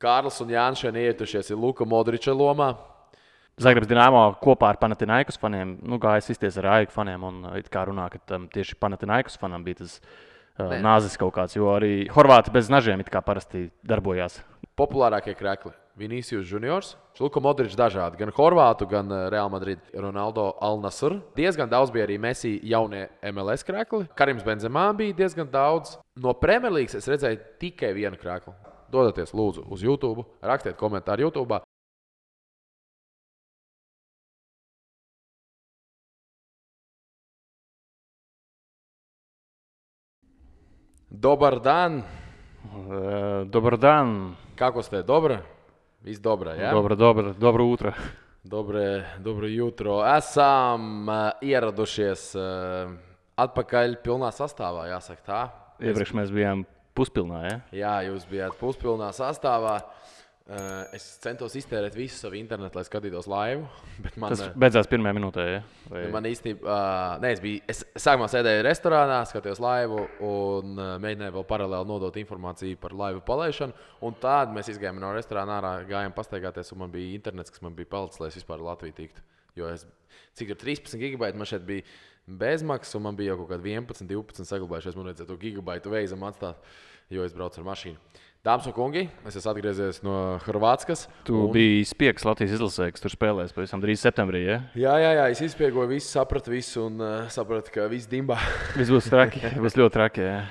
Kārlis un Jānis šeit ietušies ir Luka Modriča lomā. Zagrebs Dinamo kopā ar Panathinaikos faniem, gājas izties ar AIK faniem un it kā runā, ka tieši Panathinaikos fanam bija tas nāzis kaut kāds, jo arī horvāti bez nažiem it kā parasti darbojās. Populārākie krekli - Vinicius Juniors, Luka Modričs dažādi, gan horvātu, gan Real Madrid, Ronaldo Al-Nasr. Diezgan daudz bija arī Messi jaunie MLS krekli. Karims Benzemā bija diezgan daudz. No Premjerlīgas es redzēju tikai vienu krekli. Dodieties, lūdzu, uz YouTube, rakstiet komentāru YouTube. Dobar dan. Dobar dan. Kako ste? Dobro? Viss dobro, ja? Dobro utro. Dobro jutro. Esam ieradušies atpakaļ pilnā sastāvā, jāsaka tā. Iepriekš mēs bijām puspilnā, ja? Jā, jūs bijāt puspilnā sastāvā. Es centos iztērēt visu savu internetu, lai skatītos laivu. Tas beidzās pirmajā minūtē, ja? Man īstenībā, es sākumā sēdēju restorānā, skatījos laivu un mēģināju vēl paralēli nodot informāciju par laivu palaišanu. Un tad mēs izgājām no restorāna ārā, gājām pastaigāties, un man bija internets, kas man bija palicis, lai es vispār Latviju tiktu. Jo cik tur 13 gigabaiti man šeit bija bezmaksas, un man bija jau kaut kādi 11, 12 saglabājušies. Man vajadzēja to gigabaitu veizam atstāt, jo es braucu ar mašīnu. Dāmas un kungi, es esmu atgriezies no Horvātskas. Tu biji spiegs Latvijas izlasē, kas tur spēlēs pavisam drīz septembrī, ja? Jā, es izspiegoju visu, sapratu visu un sapratu, ka viss dimbā. Viss būs traki, būs ļoti traki, jā.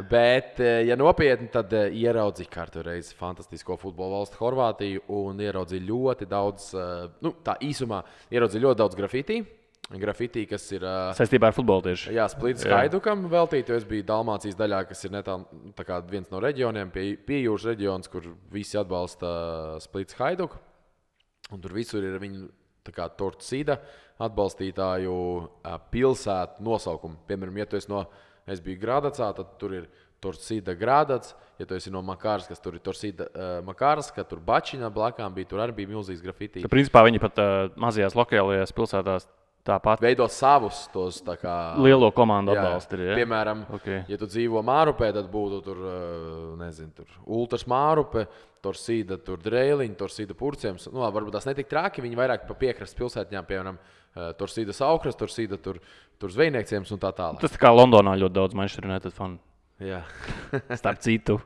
Bet, ja nopietni, tad ieraudzīju kārtu reizi fantastisko futbola valstu Horvātiju un ieraudzīju ļoti daudz, tā īsumā, ieraudzīju ļoti daudz grafitī. Grafitī, kas ir saistībā ar futbolu tieši. Jā, Splits Haidukam veltīt, jo es biju Dalmācijas daļā, kas ir netālu tā kā viens no reģioniem, pie jūras reģions, kur visi atbalsta Splits Haiduku. Un tur visur ir viņu tā kā Torcida atbalstītāju pilsētu nosaukumi. Piemēram, ja tu esi es biju Grādacā, tad tur ir Torcida Grādats. Ja tu esi no Makārskas, tur ir Torcida Makārska, tur Bačiņa blakām bija, tur arī bija milzīgs grafitī. Principā viņi pat mazajās lokālajās pilsētās tāpat veido savus tos tā kā lielo komandu atbalstu. Ja? Piemēram, ja tu dzīvo Mārupē, tad būtu tur, tur Ultras Mārupe, Torcida, tur Dreiliņa, Torcida Purciems. Varbūt tās netik traki, viņi vairāk pa piekrastes pilsētņām, piemēram, Torcida Saukras, Torcida tur Zvejniekciems un tā tālāk. Tas tā kā Londonā ļoti daudz Manchester United fanu. Jā. Starp citu.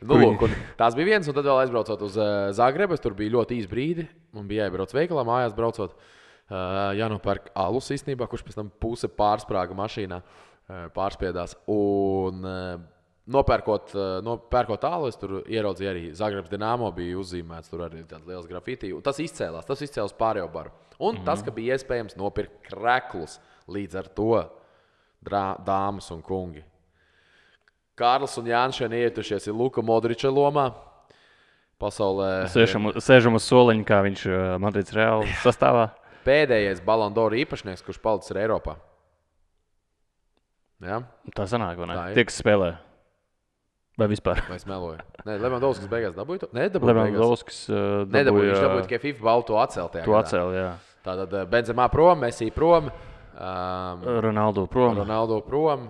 Tās bija viens, un tad vēl aizbraucot uz Zagrebu, tur bija ļoti īs brīdi, man bija jāiebrauc veikalā, mājās braucot. Jānopērk alus īstenībā, kurš pēc tam puse pārsprāga mašīnā, pārspiedās. Un nopērkot alu, es tur ieraudzīju arī Zagrebs Dinamo bija uzzīmēts, tur arī tāds liels grafitī. Un tas izcēlās pārējo baru. Un tas, ka bija iespējams nopirkt kreklus līdz ar to, dāmas un kungi. Kārlis un Jānis šeit ietušies ir Luka Modriča lomā. Pasaulē Sēžam uz soliņa, kā viņš Madrids Reāli sastāvā. Pēdējais Ballon d'Or īpašnieks, kurš palicis ir Eiropā. Ja? Tā sanāk, vai ne? Tie, kas spēlē. Vai vispār? Vai es meloju? Nē, Levandovskis beigās dabūja to? Nē, dabūja Levandovskis nedabūja. Viņš dabūja tikai FIFA balvu to atceltajā. To atcēl, jā. Tātad Benzemā prom, Messi prom. Ronaldo prom.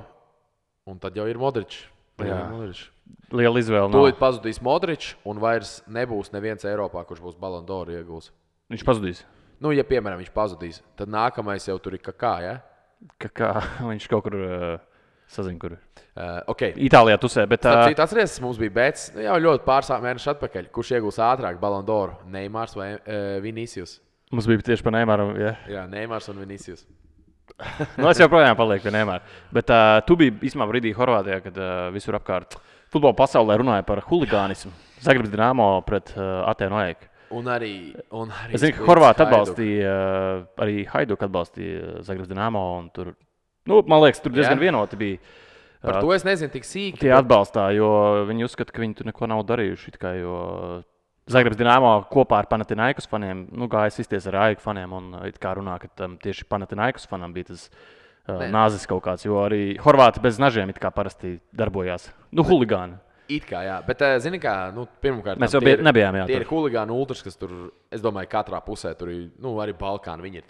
Un tad jau ir Modričs. Liela izvēle. Tūlīt pazudīs Modričs un vairs nebūs neviens Eiropā, kurš būs Ballon d'Or iegūs. Viņš pazudīs? Ja piemēram viņš pazudīs, tad nākamais jau tur ir Kakā, ja? Kakā, viņš kaut kur sazina, kur. Okay. Itālijā tusē, bet... Atceries, mums bija bets jau ļoti pāris mēnešu atpakaļ. Kurš iegūs ātrāk Ballon d'Or? Neimārs vai Vinicius? Mums bija tieši par Neimaru, jā. Jā, Neimārs un Vinicius. Es joprojām palieku pie Neimāra. Bet tu biji īstenībā brīdī Horvātijā, kad visur apkārt futbola pasaulē runāja par huligānismu. Zagrebs Dinamo pret Atēnu AEK. Un arī es zinu, ka Horvāti atbalstīja, arī Hajduk atbalstīja Zagrebs Dinamo. Un tur, man liekas, tur diezgan vienoti bija. Par to es nezinu tik sīki. Tie atbalstā, jo viņi uzskata, ka viņi tur neko nav darījuši. Jo Zagrebs Dinamo kopā ar Panathinaikos faniem, gājas izties ar AIK faniem. Un it kā runā, ka tieši Panathinaikos fanam bija tas nāzis kaut kāds. Jo arī Horvāti bez nažiem it kā parasti darbojās. Huligāni. It kā, jā, bet, zini kā, pirmkārt, mēs jau nebijām, jā. Tie ir huligāni ultras, kas tur, es domāju, katrā pusē tur ir, arī Balkāni, viņi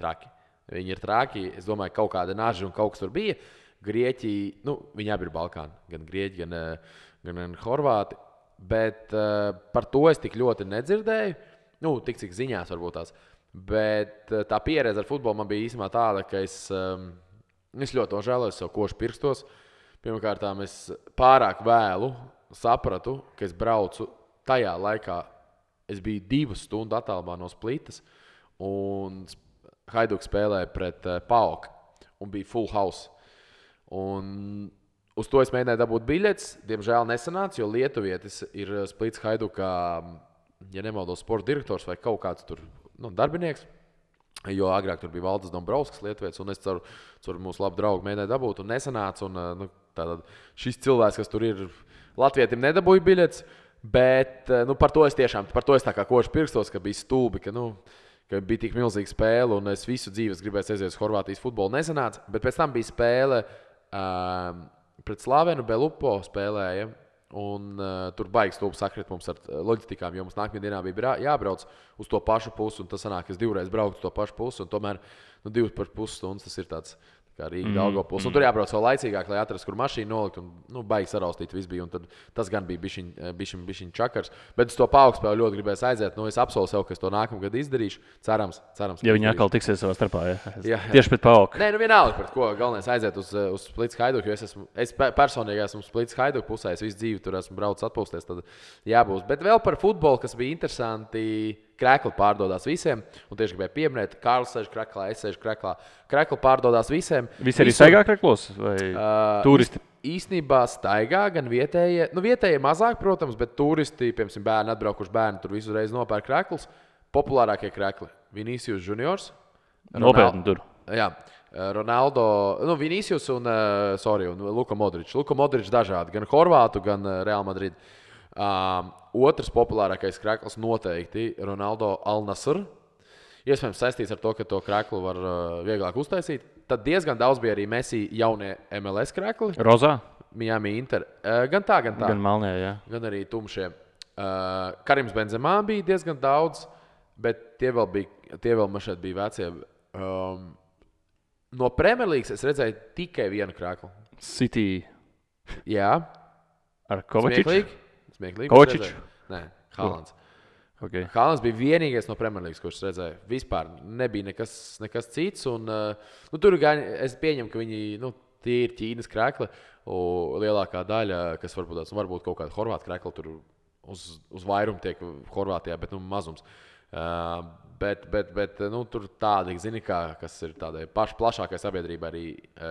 ir traki. Es domāju, kaut kāda naža un kaut kas tur bija. Grieķi, viņi abi ir Balkāni, gan Grieķi, gan Horvāti. Bet par to es tik ļoti nedzirdēju. Nu, tik cik ziņās varbūt tās. Bet tā pieredze ar futbolu man bija īstenībā tāda, ka es ļoti nožēloju sev košu pirstos. Pirmkārt, es pārāk vēlu sapratu, ka es braucu tajā laikā. Es biju 2 stundu attālumā no Splitas, un Haiduks spēlēja pret PAOK, un bija full house. Un uz to es mēģināju dabūt biļetes. Diemžēl nesanāca, jo lietuvietis ir Splits Haidukā, ja nemaldos, sporta direktors vai kaut kāds tur darbinieks. Jo agrāk tur bija Valdis Dombrovskis, lietuvietis, un es caur mūsu labu draugu mēģināju dabūt, un nesanāca. Un, tātad šis cilvēks, kas tur ir, latvietim nedabūja biļetes, bet par to es tā kā košu pirstos, ka bija stulbi, ka bija tik milzīga spēle, un es visu dzīves gribēju aiziet uz Horvātijas futbolu. Nesanāca, bet pēc tam bija spēle pret Slavenu Belupo spēlēja, un tur baigs stulbi sakrit mums ar loģistikām, jo mums nākamajā dienā bija jābrauc uz to pašu pusi, un tas sanāk, ka es 2 reizes braucu uz to pašu pusi, un tomēr 2,5 stundas tas ir tāds kā Rīga Daugavpils. Un tur jābrauc vēl laicīgāk, lai atrastu, kur mašīnu nolikt, un baigi saraustīt viss bija, un tad tas gan bija bišķiņ čakars. Bet uz to PAOK spēli ļoti gribēju aiziet, es apsolu sev, ka es to nākamgad izdarīšu. Cerams. Ja viņi atkal tiksies savā starpā, ja? Tieši pret PAOK. Nē, vienalga, pret ko galvenais aiziet uz Splits Haiduku, jo es personīgi esmu Splits Haiduku pusē, es visu dzīvi tur esmu braucis atpūsties, tad jābūs. Bet vēl par futbolu, kas bija interesanti, Krekli pārdodās visiem, un tieši gribēju pieminēt, Kārlis sēž Kreklā, es sēžu Kreklā. Krekli pārdodās visiem. Visi arī staigā Kreklos vai turisti? Īstenībā staigā gan vietējie, vietējie mazāk, protams, bet turisti, piemēram, bērni atbraukuši bērni, tur visu reizi nopērk Kreklus. Populārākie Krekli - Vinicius Juniors. Nopietni tur. Jā. Ronaldo, Vinicius un Luka Modričs. Luka Modričs dažādi, gan Horvātu, gan Real Madrid. Otrs populārākais krekls noteikti Ronaldo Al-Nasr. Iespējams saistīts ar to, ka to kreklu var vieglāk uztaisīt. Tad diezgan daudz bija arī Messi jaunie MLS krekli. Rozā? Miami Inter. Gan tā. Gan Malnē, jā. Gan arī tumšie. Karims Benzemā bija diezgan daudz, bet tie vēl man šeit bija vecie. No Premjerlīgas es redzēju tikai vienu kreklu. City. Jā. Ar Kovačiču? Smieklīgi. Kovačičs? Nē, Haalands. Okay. Haalands bija vienīgais no Premjerlīgas, kurš redzēja. Vispār nebija nekas cits. Un, tur es pieņemu, ka viņi tie ir Ķīnas krekli. Lielākā daļa, kas varbūt kaut kāda horvāta krekla, tur uz vairumu tiek Horvātijā, bet mazums. Bet tur tādi, zini, kas ir tādai plašākai sabiedrībai arī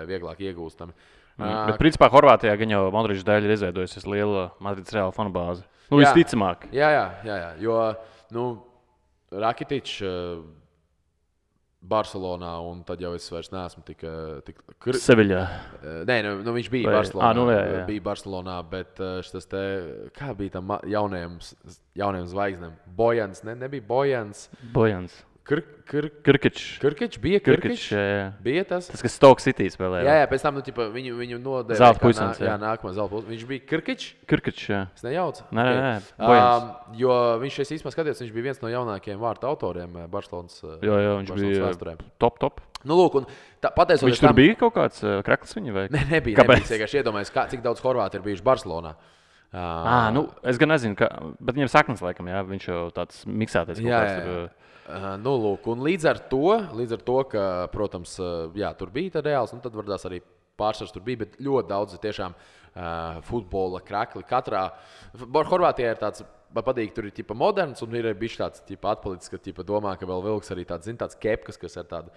vieglāk iegūstami. Bet, principā, Horvātijā gan jau Modričs dēļ ir izveidojusies liela Madrides Reāla fanu bāze. Visticamāk. Jā. Jo Rakitičs Barcelonā, un tad jau es vairs neesmu tik Seviļā. Nē, viņš bija Barcelonā. Jā. Bija Barcelonā, bet šis te, kā bija tam jauniem zvaigznēm? Bojans, nebija Bojans. Kirkičs bija Kirkičs. Bija tas. Tas, kas Stoke City spēlēja. Jā, pēc tam viņu nodēvēja. Zelta puisens. Jā, nākamā zelta puisens. Viņš bija Kirkičs. Kirkičs, jā. Es nejaucu. Nē. Bojans. Jo viņš īstenībā skatījās, viņš bija viens no jaunākajiem vārtu autoriem Barcelonas. Jā, viņš bija vēsturēm. Top. Lūk, un pateicoties viņš tur bija kaut kāds krekls viņa vai? Nebija. Kāpēc? Es vienkārši iedomājos, cik daudz horvāti ir bijuši Barcelonā. Es gan nezinu, bet viņam saknes laikam, jā, viņš jau tāds miksētais kaut kāds tur. Lūk, un līdz ar to, ka, protams, tur bija reāls, tad varbūt arī pārsvars tur bija, bet ļoti daudz tiešām futbola krekli. Katrā Horvātijā ir tāds, man patīk, tur ir moderns, un ir bijis tāds atpalicis, ka domā, ka vēl vilks arī tāds kepkas, kas ir tāda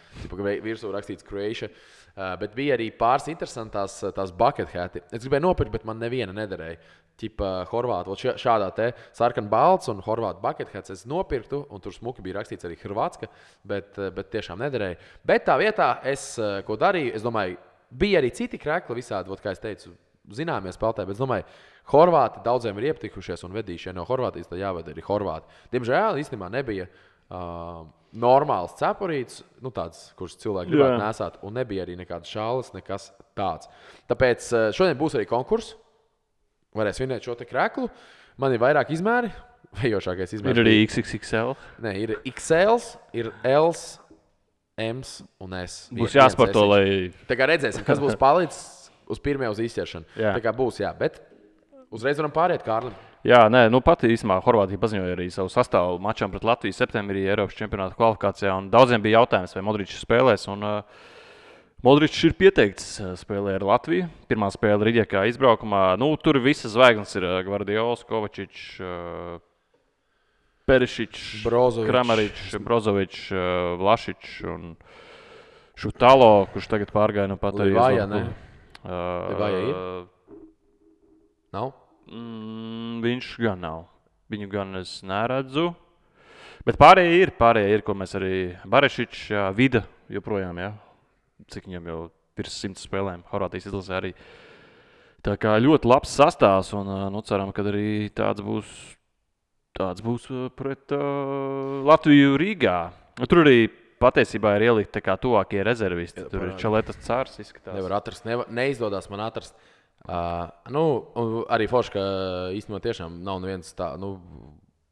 virsū rakstīts Croatia. Bet bija arī pāris interesantās tās bucket hati. Es gribēju nopirkt, bet man neviena nederēja. Horvātu, šādā te sarkan balts un horvātu bucket hats es nopirktu, un tur smuki bija rakstīts arī Hrvatska, bet tiešām nederēja. Bet tā vietā ko darīju, es domāju, bija arī citi krekli visādi, kā es teicu, zināmie spēlētāji, bet es domāju, Horvāti daudziem ir ieptikušies un vedījušie no Horvātijas, tad jāved arī Horvāti. Diemžēl īstenībā nebija normāls cepurīts, tāds, kurš cilvēki gribētu nesāt, un nebija arī nekādas šāles, nekas tāds. Tāpēc šodien būs arī konkurss. Varēs vinēt šo te kreklu. Man ir vairāk izmēri. Vējošākais izmērs. Ir arī XXL. Nē, ir XL, ir L, M un S. Būs jāsporto, lai... Tā kā redzēsim, kas būs palicis uz pirmajā uz izķeršanu. Tā kā būs, jā. Bet uzreiz varam pāriet Kārlim. Jā, nē, pati īstenībā Horvātija paziņoja arī savu sastāvu mačām pret Latviju septembrī Eiropas čempionāta kvalifikācijā. Daudziem bija jautājums, vai Modričs spēlēs. Modričs ir pieteikts spēlē ar Latviju. Pirmā spēle Rīģekā izbraukumā. Tur visas zvaigznes ir Gvardiols, Kovačičs, Perišičs, Kramaričs, Brozovičs, Vlašičs un Šutalo, kurš tagad pārgāja no pat arī. Livāja, ne? Livāja ir? Nav? Viņš gan nav. Viņu gan es neredzu. Bet pārējie ir, ko mēs arī Barešičs, Vida joprojām, jā. Cik viņam jau virs 100 spēlēm Horvātijas izlasē arī. Tā kā ļoti labs sastāvs un ceram, ka arī tāds būs pret Latviju Rīgā. Tur arī patiesībā ir ielikt tā kā tuvākie rezervisti. Tur ir Čaletas Cārs izskatās. Nevar atrast, neizdodas man atrast. Arī forši, ka īstenībā tiešām nav neviens tā,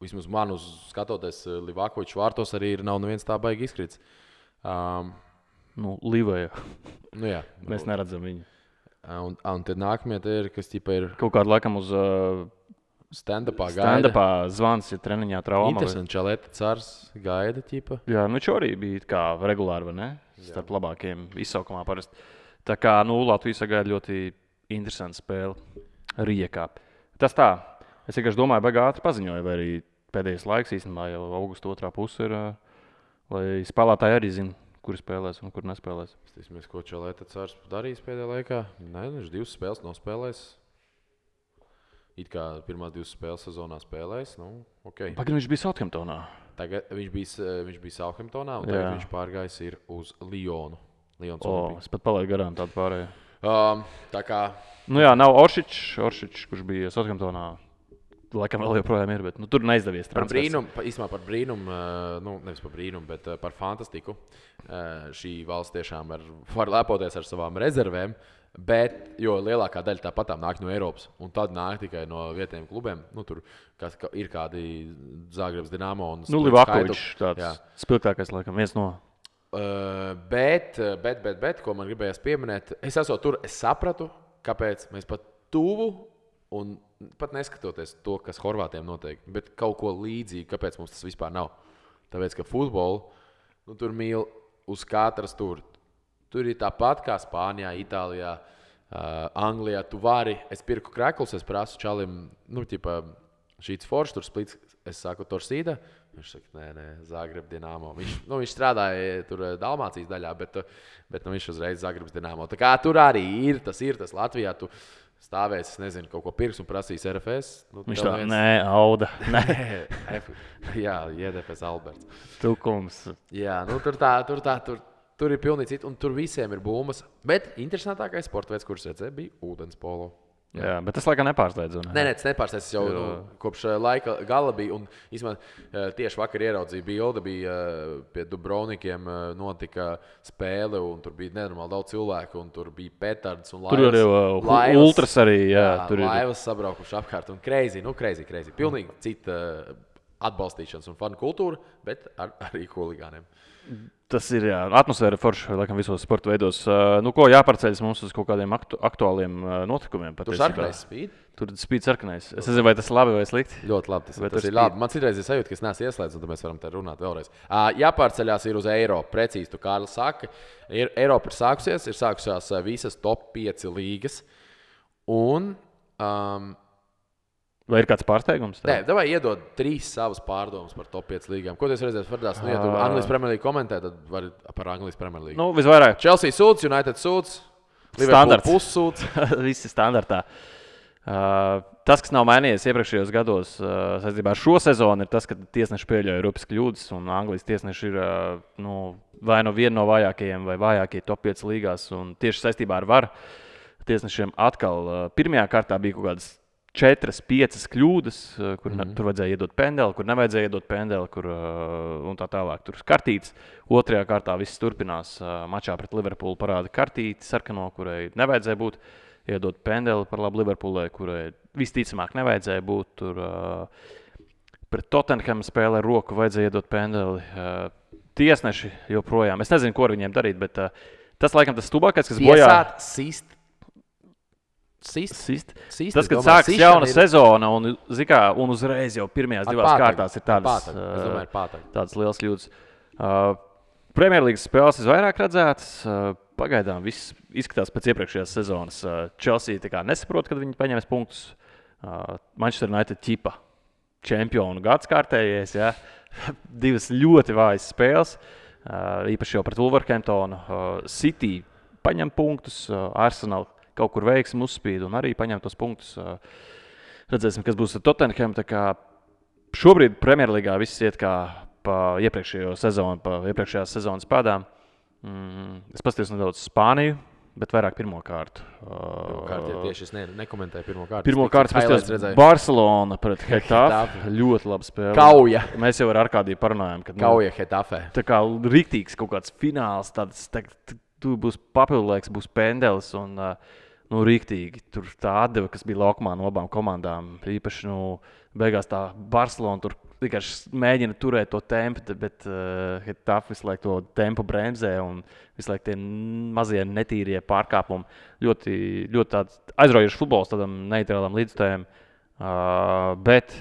vismaz man uz skatoties Livakovičs vārtos arī nav neviens tā baigi izkrits. Livaja. Jā. Mēs neredzam viņu. Un tad nākamie ir, kas ir kaut kādu laikam uz stand-upā zvans, ja treniņā trauma. Interesanti, Čaleta Cārs gaida ķipa. Jā, viņš arī bija kā regulāri, vai ne? Starp labākiem izsaukumā parasti. Tā kā, Latvija sagaida ļoti interesanta spēle Rijekā. Tas tā. Es vienkārši domāju, baigi ātri paziņoju, vai arī pēdējais laiks īstenībā jau augusta otrā puse ir, lai spēlētāji arī zina, kuri spēlēs un kur nespēlēs. Mēs, ko Čaleta Cārs darīs pēdējā laikā? Nē, viņš 2 spēles nospēlēs. It kā pirmās 2 spēles sezonā spēlēs. Okay. Pagaidām viņš bija Southamptonā. Tagad viņš bija Southamptonā un tagad viņš pārgājis ir uz Lionu. Es pat palaidu garām tādu pārēju. Tā kā... nav Oršičs, kurš bija Southamptonā. Laikam vēl joprojām ir, bet tur neizdevies transfers. Par brīnumu, nevis par brīnumu, bet par fantastiku. Šī valsts tiešām var lepoties ar savām rezervēm, jo lielākā daļa tāpatām nāk no Eiropas, un tad nāk tikai no vietējiem klubiem. Tur ir kādi Zagrebs, Dinamo un Livakovičs tāds spilgtākais, laikam, viens no. Bet, ko man gribējās pieminēt, es esmu tur, es sapratu, kāpēc mēs pat tuvu un pat neskatoties to, kas Horvātiem notiek, bet kaut ko līdzīgu, kāpēc mums tas vispār nav. Tāpēc, ka futbolu, tur mīl uz katras tur. Tur ir tāpat kā Spānijā, Itālijā, Anglijā. Tu vari, es pirku kreklus, es prasu čalim, šīts foršs, tur splits, es saku Torsīda. Viņš saka, nē, Zagreb Dinamo. Viņš strādāja tur Dalmācijas daļā, bet viņš uzreiz Zagrebs Dinamo. Tā kā tur arī ir tas Latvijā. Tu stāvēs, es nezinu, kaut ko pirks un prasīs RFS. Viņš tā, Auda. Jā, JDFS Alberts. Tukums. Jā, tur ir pilnīgi citi, un tur visiem ir būmas. Bet interesantākais sporta veids, kurš redzēja, bija ūdens polo. Jā, bet tas laikam nepārsteidz. Nē, tas nepārsteidz. Es jau kopš laika gala biju. Un īstenībā tieši vakar ieraudzīju bildi, bija pie Dubrovnikiem notika spēle, un tur bija nenormāli daudz cilvēku, un tur bija petards un laivas. Tur arī ultras arī, tur laivas sabraukuši apkārt, un crazy. Pilnīgi cita atbalstīšanas un fanu kultūra, bet arī huligāniem. Tas ir atmosfēra forša, laikam, visos sporta veidos. Ko jāpārceļas mums uz kaut kādiem aktuāliem notikumiem? Tur sarkanais spīd? Tur spīd sarkanais. Es nezinu, vai tas ir labi vai slikti. Ļoti labi. Tas ir labi. Man citreiz ir sajūta, ka es neesmu ieslēdzis, un tad mēs varam te runāt vēlreiz. Jāpārceļās ir uz Eiropu. Precīzi, tu Kārlis saka. Eiropa ir sākusies visas top 5 līgas. Un... vai ir kāds pārsteigums? Nē, davai iedod 3 savas pārdomas par top 5 līgām. Ko tu redzēsi Fardās? Ja tu Anglijas Premier League komentē, tad vari par Anglijas Premier League. Visvairāk. Chelsea sūds, United sūds, Liverpool pussūds. Visi standartā. Tas, kas nav mainījies iepriekšējos gados saistībā ar šo sezonu, ir tas, ka tiesneši pieļauj rupas kļūdas, un Anglijas tiesneši ir vai viena no vājākajiem vai vājākie top 5 līgās. Un tieši saistībā ar VAR tiesnešiem atkal pirmajā kārtā bija kaut kādas 4-5 kļūdas, kur tur vajadzēja iedot pendeli, kur nevajadzēja iedot pendeli, un tā tālāk. Tur kartītes. Otrajā kārtā viss turpinās. Mačā pret Liverpoolu parāda kartīti sarkano, kurai nevajadzēja būt. Iedot pendeli par labu Liverpoolai, kurai visticamāk nevajadzēja būt. Tur pret Tottenham spēlē roku vajadzēja iedot pendeli. Tiesneši joprojām. Es nezinu, ko ar viņiem darīt, bet tas laikam tas stubākais, kas bojā. Sist Tas, kad sākas jauna sezona un uzreiz jau pirmajās divās kārtās ir tādas liels kļūdas. Premjerlīgas spēles visvairāk redzētas. Pagaidām viss izskatās pēc iepriekšējās sezonas. Chelsea nesaprot, kad viņi paņems punktus. Manchester United ķipa čempionu gads kārtējais. Ja? Divas ļoti vājas spēles. Īpaši jau pret Wolverhamptonu. City paņem punktus. Arsenal kaut kur veiksmi uzspīd un arī paņem tos punktus. Redzēsim, kas būs ar Tottenham. Šobrīd Premjerlīgā viss iet kā pa iepriekšējās sezonas pādām. Es paskatījos nedaudz Spāniju, bet vairāk pirmo kārtu. Tieši es nekomentēju pirmo kārtu. Pirmo kārtu paskatījos Barcelona pret Hetafe. Ļoti laba spēle. Kauja. Mēs jau ar Arkādiju parunājām. Kauja Hetafe. Tā kā riktīgs kaut kāds fināls, tur būs papildulēks, būs pendelis un riktīgi. Tur tā atdeva, kas bija laukumā no abām komandām. Īpaši beigās tā Barcelona tur vienkārši mēģina turēt to tempu, bet Hetafe visu laiku to tempu bremzē un visu laiku tie mazie netīrie pārkāpumi. Ļoti, ļoti tāds aizraujošs futbols tādam neitrālam līdzstājam. Bet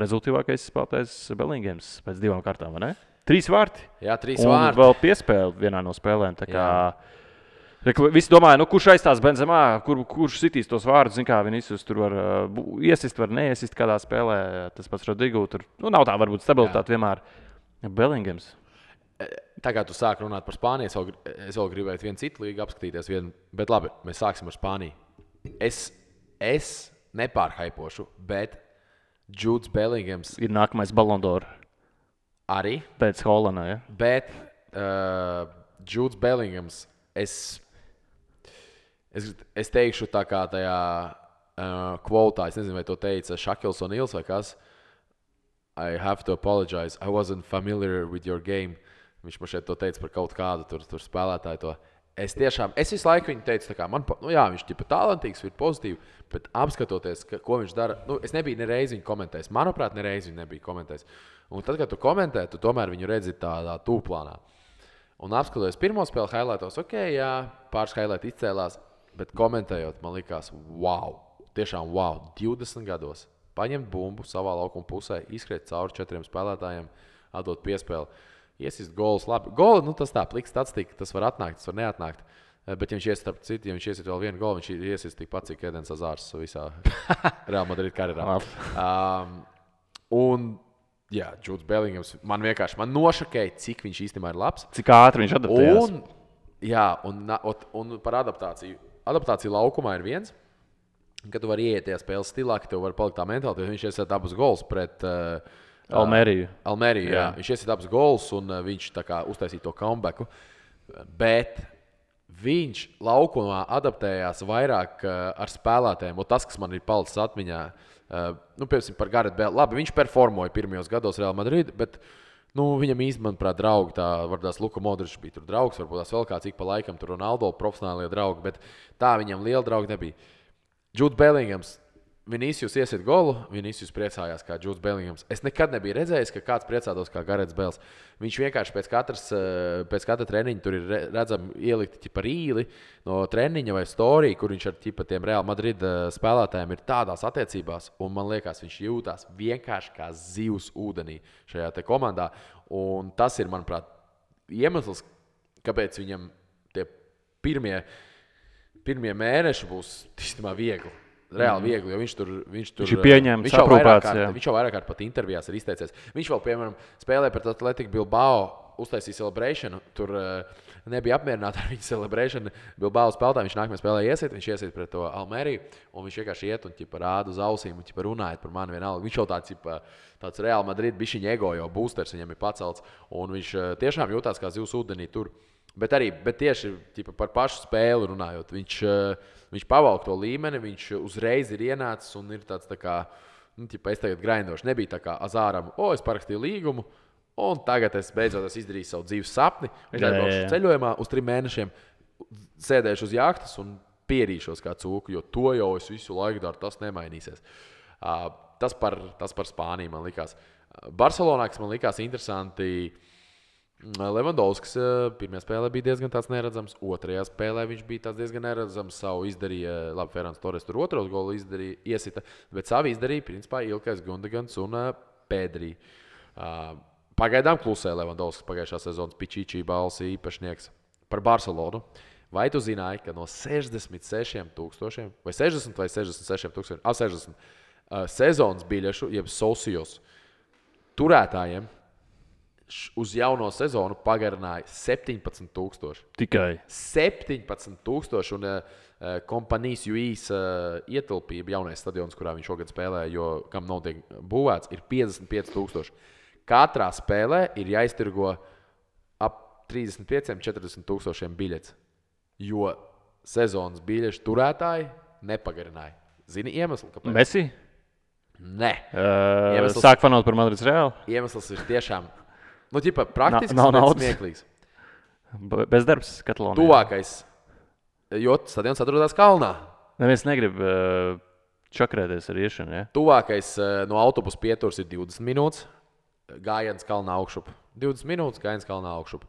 rezultīvākais spēlētājs Bellingams pēc 2 kārtām, vai ne? 3 vārti. Jā, 3 Un vārti. vēl piespēle vienā no spēlēm. Visi domāja, kurš aizstās Benzemā, kurš sitīs tos vārdus. Vinicius tur var iesist, var neiesist kādā spēlē. Tas pats Rodrigo. Tur nav tā varbūt stabilitāte vienmēr. Bellingams. Tā kā tu sāki runāt par Spāniju, es vēl gribēju vienu citu līgu apskatīties. Bet labi, mēs sāksim ar Spāniju. Es nepārhaipošu, bet Judes Bellingams ir nākamais Ballon d'Or. Arī. Pēc Holanda, ja? Bet Judes Bellingams, es teikšu tā kā tajā kvotā, es nezinu, vai to teica Šakils un Ils vai kas. I have to apologize, I wasn't familiar with your game. Viņš man šeit to teica par kaut kādu tur spēlētāju to. Es visu laiku viņu teicu, tā kā viņš ir talantīgs, ir pozitīvi, bet apskatoties, ko viņš dara, es nebiju nereiz viņu komentējis. Manuprāt, nereiz viņu nebiju komentējis. Un tad, kad tu komentē, tu tomēr viņu redzi tādā tūplānā. Un apskatoties pirmo spēli highlightos, pāris highlighti izcēlās, bet komentējot, man likās, wow, tiešām wow, 20 gados paņemt bumbu savā laukuma pusē, izskriet cauri 4 spēlētājiem, atdot piespēli, iesist golus, labi. Goli, tas tā, pliks statistika, tas var atnākt, tas var neatnākt, bet ja viņš iesist starp citu, ja viņš iesist vēl vienu golu, viņš iesist tikpat, cik Edens Hazards visā Real Madrid karjerā. Jā, Judes Bellingams man nošokēja, cik viņš īstenībā ir labs. Cik ātri viņš adaptējās. Un par adaptāciju. Adaptācija laukumā ir viens, kad tu vari ieiet tajā spēles stilā, ka tev var palikt tā mentālitāte, jo viņš iesiet abus gols pret Almeriju. Jā. Viņš iesiet abus gols un viņš tā kā uztaisīja to comebacku. Bet viņš laukumā adaptējās vairāk ar spēlētājiem. Un tas, kas man ir palicis atmiņā, piemēram, par Gareth Bale. Labi, viņš performoja pirmajos gados Real Madrid, bet viņam īstenībā, manuprāt, draugi, varbūt Luka Modričs bija tur draugs, varbūt tās vēl kāds ik pa laikam tur Ronaldo profesionālie draugi, bet tā viņam liela draugi nebija. Judes Bellingams, Vinicius iesiet golu, Vinicius priecājās kā Judes Bellingams. Es nekad nebiju redzējis, ka kāds priecātos kā Gareths Bales. Viņš vienkārši pēc katra treniņa tur ir redzami ielikti par īli no treniņa vai storija, kur viņš ar tiem Real Madrid spēlētājiem ir tādās attiecībās. Un man liekas, viņš jūtās vienkārši kā zivs ūdenī šajā te komandā. Un tas ir, manuprāt, iemesls, kāpēc viņam tie pirmie mēneši būs īstenībā viegli. Reāli viegli, jo viņš ir pieņemts, aprūpēts. Viņš jau vairāk kārt pat intervijās ir izteicies. Viņš vēl, piemēram, spēlēja pret Atletico Bilbao, uztaisīja celebrationu. Tur nebija apmierināti ar viņu celebrationu. Bilbao spēlētāji, viņš nākamajā spēlē viņš iesiet pret to Almeriju, un viņš vienkārši iet un rāda uz ausīm un runājot par mani vienalga. Viņš jau tāds Real Madrid bišķiņa ego, jo boosters viņam ir pacelts, un viņš tiešām jūtās kā zivs ūdenī tur. Bet tieši par pašu spēli runājot, viņš pavalk to līmeni, viņš uzreiz ir ienācis un ir tāds tā kā, es tagad grindošu. Nebija tā kā Azāram, es parakstīju līgumu, un tagad es beidzot izdarīju savu dzīves sapni, braukšu ceļojumā uz 3 mēnešiem, sēdēšu uz jahtas un pierīšos kā cūku, jo to jau es visu laiku daru, tas nemainīsies. Tas par Spāniju man likās. Barcelonā, kas man likās interesanti, Levandovskis pirmajā spēlē bija diezgan tāds neredzams, otrajā spēlē viņš bija diezgan neredzams. Savu izdarīja, labi, Ferāns Torres tur otros golu izdarīja, iesita, bet savu izdarīja principā Ilkais Gundagans un Pedri. Pagaidām klusē Levandovskis pagājušā sezonas Pičičī balss īpašnieks par Barcelonu. Vai tu zināji, ka no 66,000 vai 60 vai 66,000 sezonas biļešu, jeb socios turētājiem uz jauno sezonu pagarināja 17,000. Tikai 17,000 un kompanijas UIS ietilpība jaunais stadions, kurā viņš šogad spēlē, jo kam nav tiek būvēts, ir 55,000. Katrā spēlē ir jāiztirgo ap 35-40,000 biļetes, jo sezonas biļešu turētāji nepagarināja. Zini iemeslu, kāpēc? Messi? Nē. Sāk fanot par Madrids Reāli? Iemesls ir tiešām praktiski smieklīgs. Bezdarbs Katalonijā. Tuvākais, jo stadions atrodas kalnā. Neviens negrib čakrēties ar iešanu, ja? Tuvākais no autobusa pieturas ir 20 minūtes. Gājiens kalnā augšup. 20 minūtes gājiens kalnā augšup.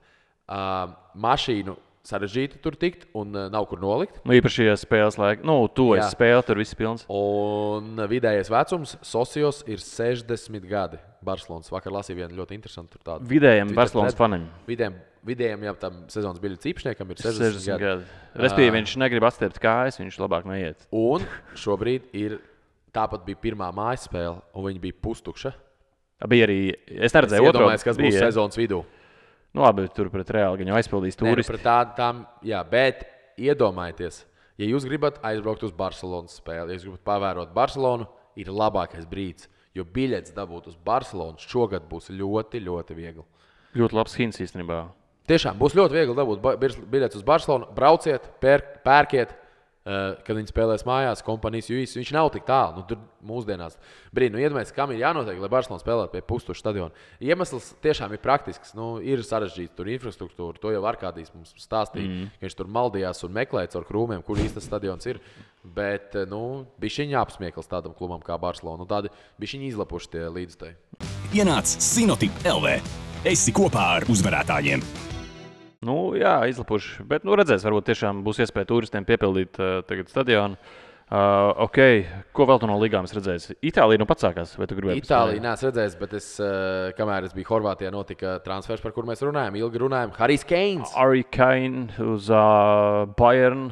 Mašīnu sarežģīti tur tikt un nav kur nolikt. Īpaši, ja spēles laika. Esi spēle, tur viss pilns. Un vidējais vecums socios ir 60 gadi. Barcelonas vakar lasīja vienu ļoti interesantu tur tādu. Vidējiem Barcelonas fanim. Vidējiem, ja tam sezonas biļetes īpašniekam ir 60 gadi. Respektīvi, viņš negrib atstiept kājas, viņš labāk neiet. Un šobrīd tāpat bija pirmā mājas spēle, un viņa bija pustukša. Bija arī, es neredzēju otro. Iedomājies, kas būs sezonas vidū. Labi, tur pret Reāli gan jau aizpildīs turisti. Bet iedomājieties, ja jūs gribat aizbraukt uz Barcelonas spēli, ja jūs gribat pavērot Barcelonu, ir labākais brīdis, jo biļetes dabūt uz Barcelonu šogad būs ļoti, ļoti viegli. Ļoti labs hints īstenībā. Tiešām būs ļoti viegli dabūt biļetes uz Barcelonu. Brauciet, pērkiet, kad viņi spēlēs mājās, kompanijas UIS. Viņš nav tik tālu. Tur mūsdienās iedomājieties, kam ir jānotiek, lai Barcelona spēlētu pie pustukša stadiona. Iemesls tiešām ir praktisks. Ir sarežģīts tur infrastruktūra. To jau Arkādijs mums stāstīja, ka viņš tur maldījās un meklēja caur krūmiem, kur īsti tas stadions ir. Bet bišķiņ apsmiekls tādam klubam kā Barcelona. Tādi bišķiņ izlapuši tie līdzstēji. Ienāc Sinoti LV. Esi kopā ar uzvarētājiem. Jā, izlapuši. Bet, redzēs, varbūt tiešām būs iespēja turistiem piepildīt tagad stadionu. Ko vēl tu no ligām redzēsi? Itālija pats sākās, vai tu gribēji? Itālija neesmu redzējis, bet kamēr es biju Horvātijā, notika transfers, par kur mēs runājam. Ilgi runājam. Harry Kane uz Bayern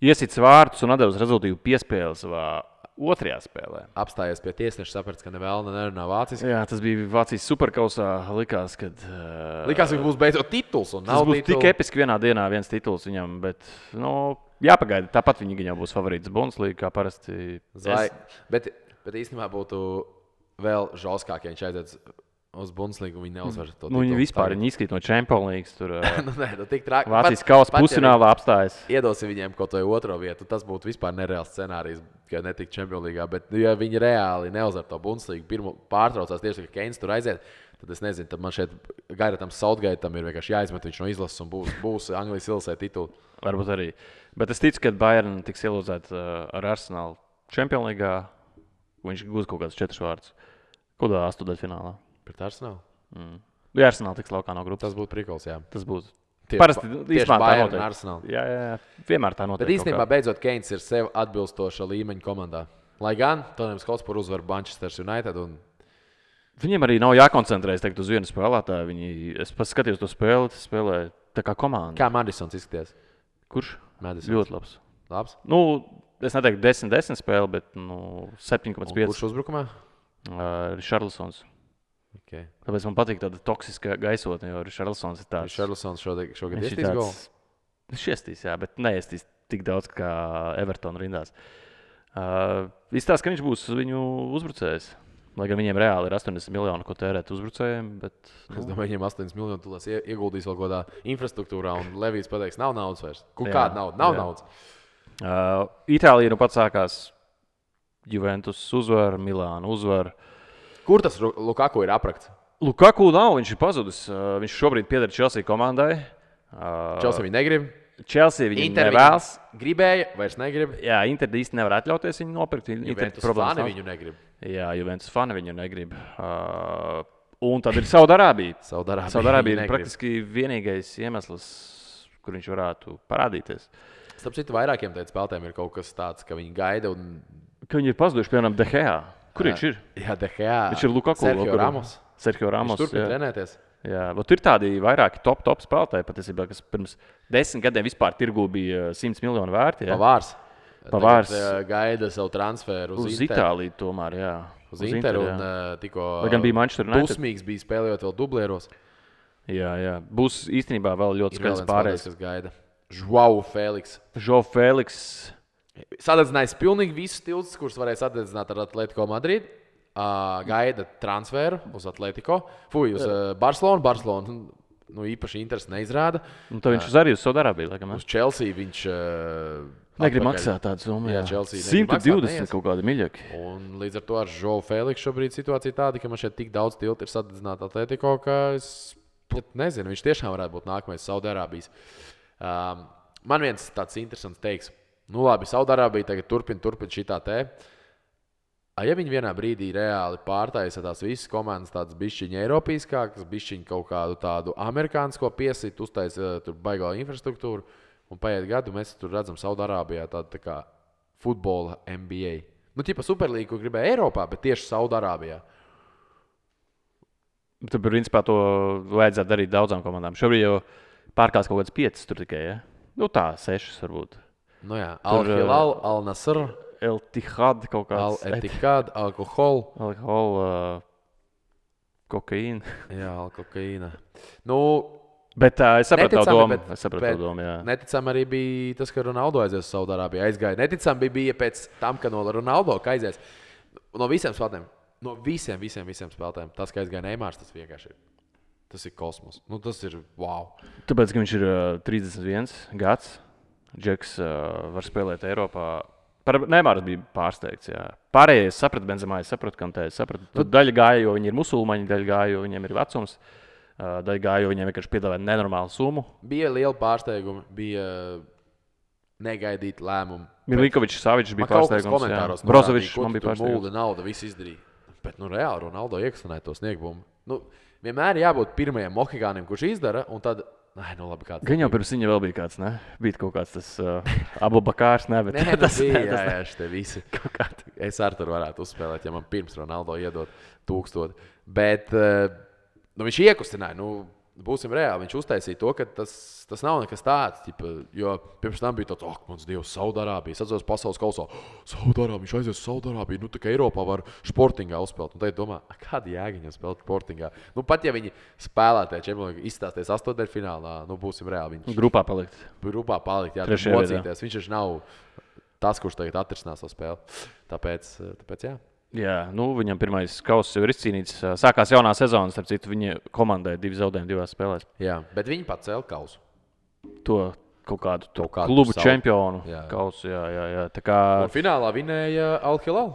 iesits vārtus un atdevis rezultīvu piespēli savā otrajā spēlē. Apstājies pie tiesneša, saprats, ka nevēlna nerunā vāciski. Jā, tas bija Vācijas superkausā. Likās, ka būs beidzot tituls. Tas būs tik episki vienā dienā viens tituls viņam, bet jāpagaida. Tāpat viņi jau būs favorīts Bundesliga, kā parasti. Bet īstenībā būtu vēl žauskāk, ja viņš aiziet uz Bundesligu, viņi neuzvar to titulu. Viņi vispār izkrīt no Champions League. Tur tik traki. Vācijas kausa pusfinālā apstājas. Iedosim viņiem kaut vai otro vietu. Tas būtu vispār nereāls scenārijs, ka netika Champions League. Bet, ja viņi reāli neuzvar to Bundesligu, pirmo pārtraucās tieši, ka Keins tur aiziet, tad es nezinu, tad man šeit Gairatam Southgateam ir vienkārši jāizmet viņš no izlases un būs Anglijas ilasē titulu. Varbūt arī. Bet es ticu, ka Bayern tiks ielūzēt ar Arsenalu Champions League. Viņš gūs kaut kāds 4 vārdus. Kādā astotdaļfinālā? Pret Arsenalu? Ja Arsenal tiks laukā no grupas. Tas būtu prikols, jā. Tas būtu. Parasti Bayern un Arsenal. Jā, vienmēr tā notiek. Bet īstenībā beidzot Keins ir sev atbilstoša līmeņa komandā. Lai gan Tottenhams Hotspur uzvar Manchester United. Viņiem arī nav jākoncentrējas uz vienu spēlētāju. Es paskatījos to spēli, tas spēlē tā kā komanda. Kā Madisons izskaties? Kurš? Madisons. Ļoti labs. Labs? Es neteiktu 10-10 spēli, bet 7,5. Kurš uzbrukumā? Richarlisons. Okay. Tāpēc man patīk tāda toksiska gaisotne, jo Richarlisons ir tāds. Richarlisons šogad iestīs golu? Viņš iestīs, jā, bet neiestīs tik daudz kā Everton rindās. Izstāsta, ka viņš būs viņu uzbrucējs. Lai gan viņiem reāli ir 80 miljoni, ko tērēt uzbrucējiem. Bet, Es domāju, viņiem 80 miljoni tulās ieguldīs vēl kādā infrastruktūrā, un Levijs pateiks, nav naudas vairs. Kāda nauda? Nav naudas. Itālija pats sākās. Juventus uzvar, Milāna uzvar. Kur tas Lukaku ir aprakts? Lukaku nav, viņš ir pazudis. Viņš šobrīd pieder Chelsea komandai. Chelsea viņu negrib. Chelsea viņu nevēlas. Gribēja, vairs negrib. Jā, Inter īsti nevar atļauties viņu nopirkt. Juventus fani viņu negrib. Jā, Juventus fani viņu negrib. Un tad ir Saudārābija. Saudārābija Ir praktiski vienīgais iemesls, kur viņš varētu parādīties. Starp citu, vairākiem teikt spēlētājiem ir kaut kas tāds, ka viņi gaida un... Ka viņi ir pazuduši, piemēram, De Gea. Kur viņš ir? Jā, De Gea. Viņš ir Lukaku. Sergio Ramos. Viņš turpina trenēties. Jā, bet ir tādi vairāki top spēlētāji, patiesībā, kas pirms 10 gadiem vispār tirgū bija 100 miljonu vērti. Pavārs. Pavārs gaida savu transferu uz Itāliju tomēr, jā. Uz Interu un tikko gan bija Manchester United. Dusmīgs bija spēlējot vēl dublieros. Jā. Būs īstenībā vēl ļoti skaidrs pārējais. Kas gaida. Joao Feliks. Sadedzinājis pilnīgi visus tiltus, kurus varēja sadedzināt ar Atletico Madrid. Gaida transferu uz Atletico. Uz Barcelonu. Barcelonu īpaši interesi neizrāda. Un tad viņš arī uz Saudārābiju, laikam. Uz Chelsea viņš... Negrib maksāt tādu summu. Jā, Chelsea 120 kaut kādi miļaki. Un līdz ar to ar Joao Feliksu šobrīd situācija tāda, ka man šeit tik daudz tiltu ir sadedzināta Atletico, ka es nezinu, viņš tiešām varētu būt nākamais Saudārābijas. Man viens tāds interesants teiks, labi, Saudārābija tagad turpina šitā te. Ja viņi vienā brīdī reāli pārtaisa tās visas komandas tādas bišķiņa eiropīskākas, bišķiņa kaut kādu tādu amerikānisko piesit, uztaisa tur baigā infrastruktūru, un paiet gadu, mēs tur redzam Saudārābijā tādu tā kā futbola NBA. Ķipa Superlīgu, ko gribēja Eiropā, bet tieši Saudārābijā. Tad, principā, to vajadzētu darīt daudzām komandām. Šobrīd jau pārkās kaut kāds 5 tur tikai, ja? Tā, 6 varbūt. Al-Hilal, Al-Nasr, El-Tihad kaut kāds. Al-Etihad, alkohol, kokaīna. Jā, kokaīna. Bet es sapratu to domu. Neticami arī bija tas, ka Ronaldo aizies uz Saudārābiju. Aizgāja. Neticami bija pēc tam, ka no Ronaldo aizies. No visiem spēlētājiem. No visiem spēlētājiem. Tas, ka aizgāja Neimārs, tas vienkārši ir. Tas ir kosmos. Tas ir wow. Tāpēc, ka viņš ir 31 gads. Džeks var spēlēt Eiropā. Neimārs bija pārsteigts. Jā. Pārējie sapratu Benzemā, sapratu Kantē. Daļa gāja, jo viņi ir musulmaņi, daļa gāja, jo viņiem ir vecums. Daļa gāja, jo viņiem vienkārši piedāvāja nenormālu summu. Bija liela pārsteiguma, bija negaidīti lēmumi. Milinkovičs, Savičs bija pārsteigums. Brozovičs man bija pārsteigums. Mulda nauda, viss izdarīja. Bet reāli Ronaldo iekastinēja to sniegumu. Vienmēr jābūt pirmajam mohikānim, kurš izdara, un tad... labi, kāds. Gan jau pirms viņa vēl bija kāds, ne? Bija kaut kāds tas Abu Bakārs, ne? Bet tas bija, jā, šitie visi. Es ar tur varētu uzspēlēt, ja man pirms Ronaldo iedot 1000. Bet... viņš iekustināja, būsim reāli. Viņš uztaisīja to, ka tas nav nekas tāds. Jo pirms tam bija tāds, mans Dievs, Saudārābija. Es atceros pasaules kausā, Saudārābija, viņš aizies uz Saudārābiju. Tā kā Eiropā var sportingā uzspēlēt. Un tad domā, kāda jēga viņam spēlēt sportingā? Pat ja viņi spēlētāji Čempionā izstāsties 8. būsim reāli. Viņš grupā palikt, jā, mocīties. Viņš taču nav tas, kurš tagad atrisinās savu spēli. Tāpēc jā. Jā, viņam pirmais kauss jau ir izcīnīts. Sākās jaunā sezona, starp citu, viņa komandai 2 zaudējumi 2 spēlēs. Jā, bet viņi pacēla kausu. To kaut kādu klubu čempionu kausu, jā. Tā kā... Un finālā vinēja Al-Hilal.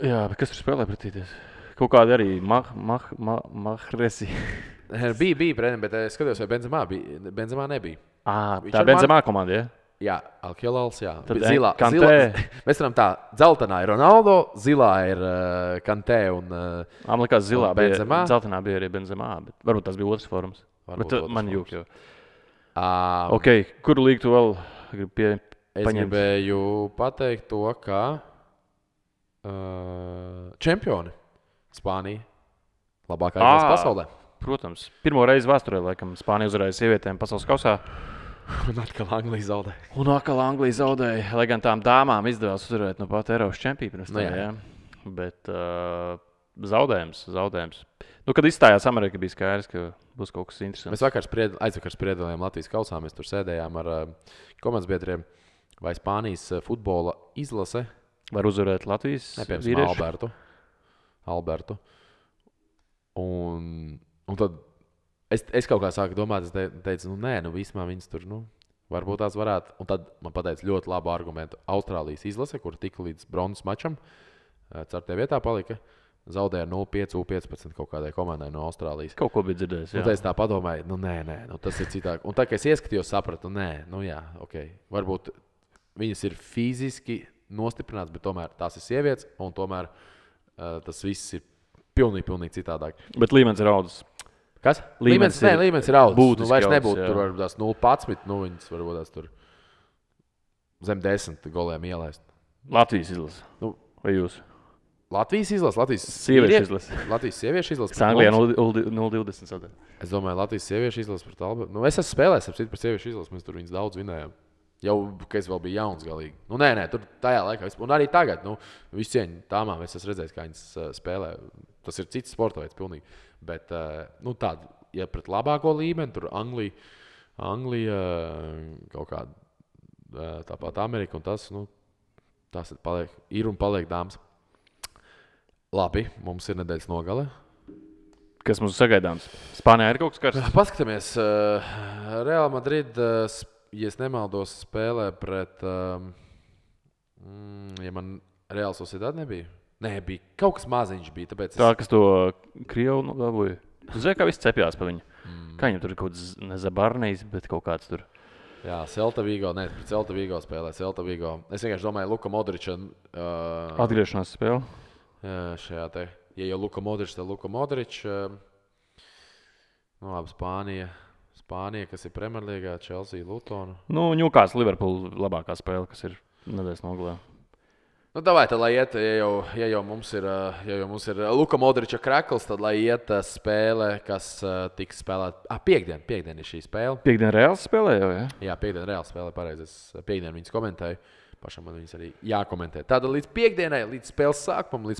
Jā, bet kas tur spēlē pretīties? Kaut kādi arī Mahresi. Bija, bet es skatījos, vai Benzemā nebija. Tā Benzemā komanda, jā? Jā, Al-Hilals, jā. Zilā. Mēs varam tā, dzeltenā ir Ronaldo, zilā ir Kantē un man likās zilā Benzemā. Dzeltenā bija arī Benzemā, bet varbūt tas bija otrs forums. Bet man jūk jau. Kuru līgu tu vēl gribi Es gribēju pateikt to, ka čempioni Spānija labākā izlase pasaulē. Protams. Pirmo reizi vēsturē, laikam, Spānija uzvarēja sievietēm pasaules kausā. Un atkal Anglija zaudēja. Lai gan tām dāmām izdevās uzvarēt no pat Eiropas čempiju pirms tam, jā. Bet zaudējums. Kad izstājās Amerika, bija skaidrs, ka būs kaut kas interesants. Mēs aizvakar spriedām Latvijas kausā. Mēs tur sēdējām ar komandas biedriem. Vai Spānijas futbola izlase var uzvarēt Latvijas vīriešu? Albertu. Un tad es kaut kā sāku domāt, es teicu, vismā viņas tur, varbūt tās varētu. Un tad man pateica ļoti labu argumentu. Austrālijas izlase, kur tika līdz bronzas mačam, 4. vietā palika, zaudēja 0-5, 15 kaut kādai komandai no Austrālijas. Kaut ko bija dzirdējis, jā. Un tad es tā padomāju, tas ir citāk. Un tā, ka es ieskatījos, sapratu, varbūt viņas ir fiziski nostiprināts, bet tomēr tās ir sievietes, un tomēr tas viss ir pilnīgi citādāk. Bet līmenis ir audzis. Kas? Līmenis Līmenis ir audzis. būtiski Vairs audzis, nebūtu jā. tur varbūt tās 0,11, viņas varbūt tās tur zem 10 goliem ielaist. Latvijas izlase. Nu, Vai jūs? Latvijas izlase, Latvijas Sieviešu izlase. Latvijas sieviešu izlase. Kas Anglijā 0,20 sadaļa. Es domāju, Latvijas sieviešu izlase pret Albertu. Nu, es esmu spēlējis par sieviešu izlasi, mēs tur viņus daudz vinējām. Jau, kad es vēl biju jauns galīgi. Nu, nē, tur tajā laikā. Un arī tagad, visu cieņu tāmām es esmu redzējis, kā viņas spēlē. Tas ir cits sporta veids pilnīgi. Bet, tāda, ja pret labāko līmeni, tur Anglija kaut kāda tāpat Amerika un tas ir un paliek dāmas. Labi, mums ir nedēļas nogale. Kas mums sagaidāms? Spānijā ir kaut kas karsts? Paskatāmies, Real Madrid, ja es nemaldos, spēlē pret, ja man Real Sociedad nebija? Nē, bija kaut kas maziņš bija, tāpēc Tā, kas to Krievu dabūja. Tu zini, kā viss cepjās pa viņu. Kā viņam tur ir kaut kāds nezabarnījis, bet kaut kāds tur. Jā, Celta Vigo, pret Celta Vigo spēlē, Celta Vigo. Es vienkārši domāju, Luka Modriča. Atgriešanās spēle. Šajā te, ja jau Luka Modrič, tad Luka Modrič. Labi, Spānija, kas ir Premjerlīgā, Chelsea, Lutona. Ņūkās Liverpool labākā spēle, kas ir nedēļas nogalē. Davai, tad, lai iet, ja jau mums ir Luka Modriča krekls, tad lai iet spēle, kas tiks spēlēta. Piektdien ir šī spēle. Piektdien Reāls spēlē jau, ja? Jā, piektdien Reāls spēlē, pareizi. Es piektdien viņas komentēju. Pašam man viņas arī jākomentē. Tātad līdz piekdienai, līdz spēles sākumam, līdz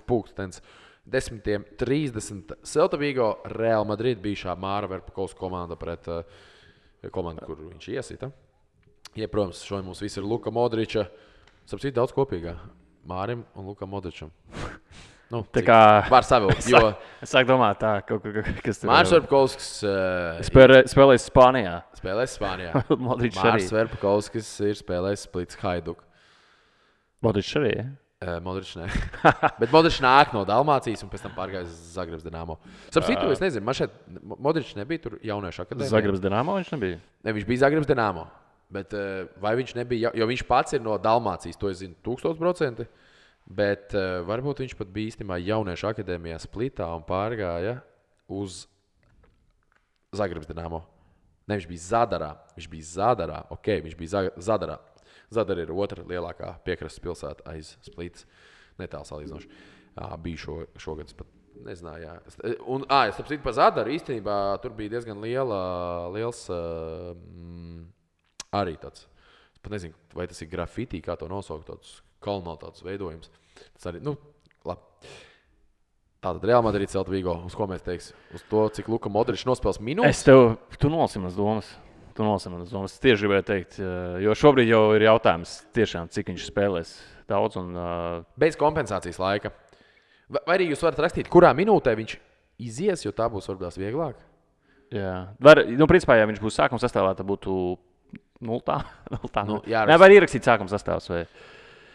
10:30 Celta Vigo, Real Madrid bijušā Māra Verpakovs komanda pret komandu, kur viņš iesita. Ja, protams, šodien mums viss ir Luka Modriča. Sapcīt daudz kopīgā. Mārim un Lukam Modričam. Tā kā var savilkt, jo es sāku domāt tā, kas tur Mārs Verpakovskis spēlēs Spānijā. spēlēs Spānijā. Modričs arī. Mārs Verpakovskis ir spēlējis Splits Hajduk. Modričs arī, ja? Modričs nē. Bet Modričs nāk no Dalmācijas un pēc tam pārgājis uz Zagrebs Dinamo. Sapcīt, es nezinu, man šeit Modričs nebija tur jauniešu akadēmijā. Zagrebs Dinamo viņš nebija? Ne, viņš bija Zagrebs Dinamo. Bet vai viņš nebija, jo viņš pats ir no Dalmācijas, to es zinu 1000%. Bet varbūt viņš pat bija īstenībā jauniešu akadēmijā Splitā un pārgāja uz Zagrebs Dinamo. Ne, viņš bija Zadarā. Ok, viņš bija Zadarā. Zadara ir otra lielākā piekrastes pilsēta aiz Splitas. Netālu salīdzinoši. Bija šogad, es pat nezināju. Jā. Un, es saprotu, par Zadaru īstenībā tur bija diezgan liels arī tāds. Es pat nezinu, vai tas ir grafitī, kā to nosaukt, tāds kolonāls veidojums. Tas arī, labi. Tātad Real Madrid, Celta Vigo, uz ko mēs teiksim? Uz to, cik Luka Modričs nospēles minūtes? Tu nolasi manas domas. Es tieši gribēju teikt, jo šobrīd jau ir jautājums tiešām, cik viņš spēlēs daudz. Bez kompensācijas laika. Vai arī jūs varat rakstīt, kurā minūtē viņš izies, jo tā būs varbūt vieglāk? Jā. Principā, ja viņš būs sākuma sastāvā, tad būtu 0. Vai ierakstīt sākuma sastāvs? Vai?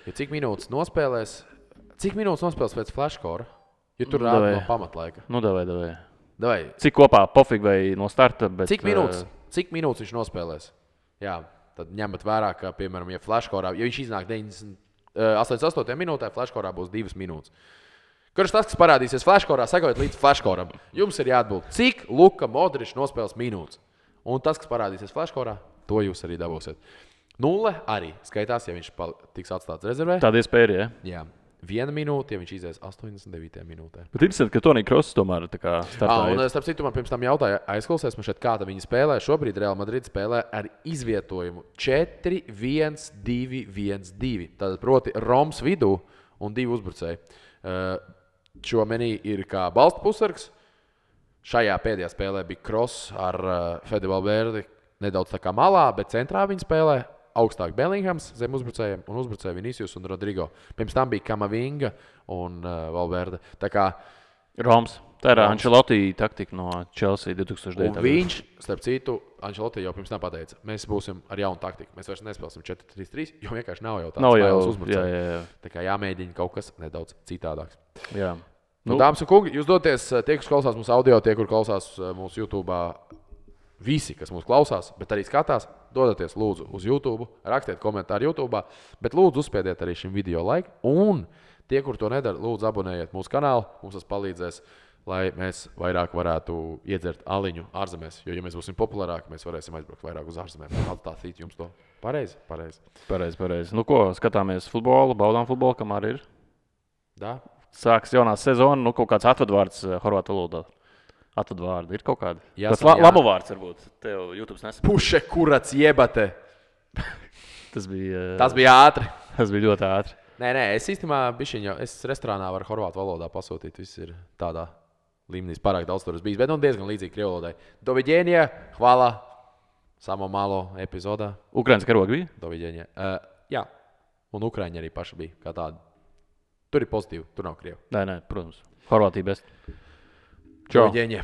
Jo cik minūtes nospēlēs pēc flashkora? Jo tur rāda no pamatlaika. Davai. Cik kopā pofīgi vai no starta? Bet, Cik minūtes viņš nospēlēs? Jā, tad ņemat vērā, ka, piemēram, ja flashkorā, ja viņš iznāk 88. minūtē, flashkorā būs 2 minūtes. Kurš tas, kas parādīsies flashkorā, sakojiet līdz flashkoram. Jums ir jāatbild, cik Luka Modričs nospēles minūtes. Un tas, kas parādīsies flashkorā, to jūs arī dabūsiet. 0 arī skaitās, ja viņš tiks atstāts rezervē. Tāda iespēja ir, ja? Jā. 1 minūte, ja viņš izies 89. minūtē. Bet interesanti, ka Tonija Kross tomēr tā kā startā. Un starp citu, man pirms tam jautāja, aizklausies man šeit, kāda viņi spēlē. Šobrīd Real Madrid spēlē ar izvietojumu 4-1-2-1-2. Tātad proti Roms vidū un 2 uzbrucēji. Šo menī ir kā balsta pusargs. Šajā pēdējā spēlē bija Kross ar Fede Valverde nedaudz tā kā malā, bet centrā viņi spēlē. Augstāk Bellinghams zem uzbrucējiem un uzbrucēji Vinicius un Rodrigo. Pirms tam bija Kamavinga un Valverde. Tā kā Roms. Tā ir Ancelotti taktika no Chelsea 2009. Un viņš, starp citu, Ancelotti jau pirms tam pateica, mēs būsim ar jaunu taktiku. Mēs vairs nespēlēsim 4-3-3, jo vienkārši nav jau tāds spēles uzbrucēji. Jā. Tā kā jāmēģina kaut kas nedaudz citādāks. Jā. Dāmas un kungi, jūs doties, tie, kas klausās mūsu audio, tie, kur klausās mūsu YouTube, visi, kas mūs klausās, bet arī skatās, dodieties lūdzu uz YouTube, rakstiet komentāru YouTube, bet lūdzu uzspiediet arī šim video laiku. Un tie, kur to nedara, lūdzu abonējiet mūsu kanālu. Mums tas palīdzēs lai mēs vairāk varētu iedzert aliņu ārzemēs. Jo, ja mēs būsim populārāki, mēs varēsim aizbraukt vairāk uz ārzemēm. Attāstīt jums to. Pareizi. Pareizi. Nu, ko, skatāmies futbolu, baudām futbolu, kamēr ir. Da? Sāks jaunā sezona, nu, kaut kāds atvadvārds horvātu valodā. Atvadvārdi ir kaut kādi. Jāsaka, Tas labu vārds varbūt. Tev YouTube nesaprot. Puše kurats jebate. Tas bija ātri. Tas bija ļoti ātri. Nē, es īstenībā bišķiņu, es restorānā varu horvātu valodā pasūtīt. Viss ir tādā līmenī, pārāk daudz tur bijis, bet diezgan līdzīgi krievu valodai. Dovidēņie, hvala, samo malo epizodā. Ukraiņas karogi bija? Dovidēņie. Jā, un Ukraiņi arī paši bija kā tādi. Tur ir pozitīvi, tur nav krievu. Nē, protams. Horvātija best. Čau. Dovidēņie.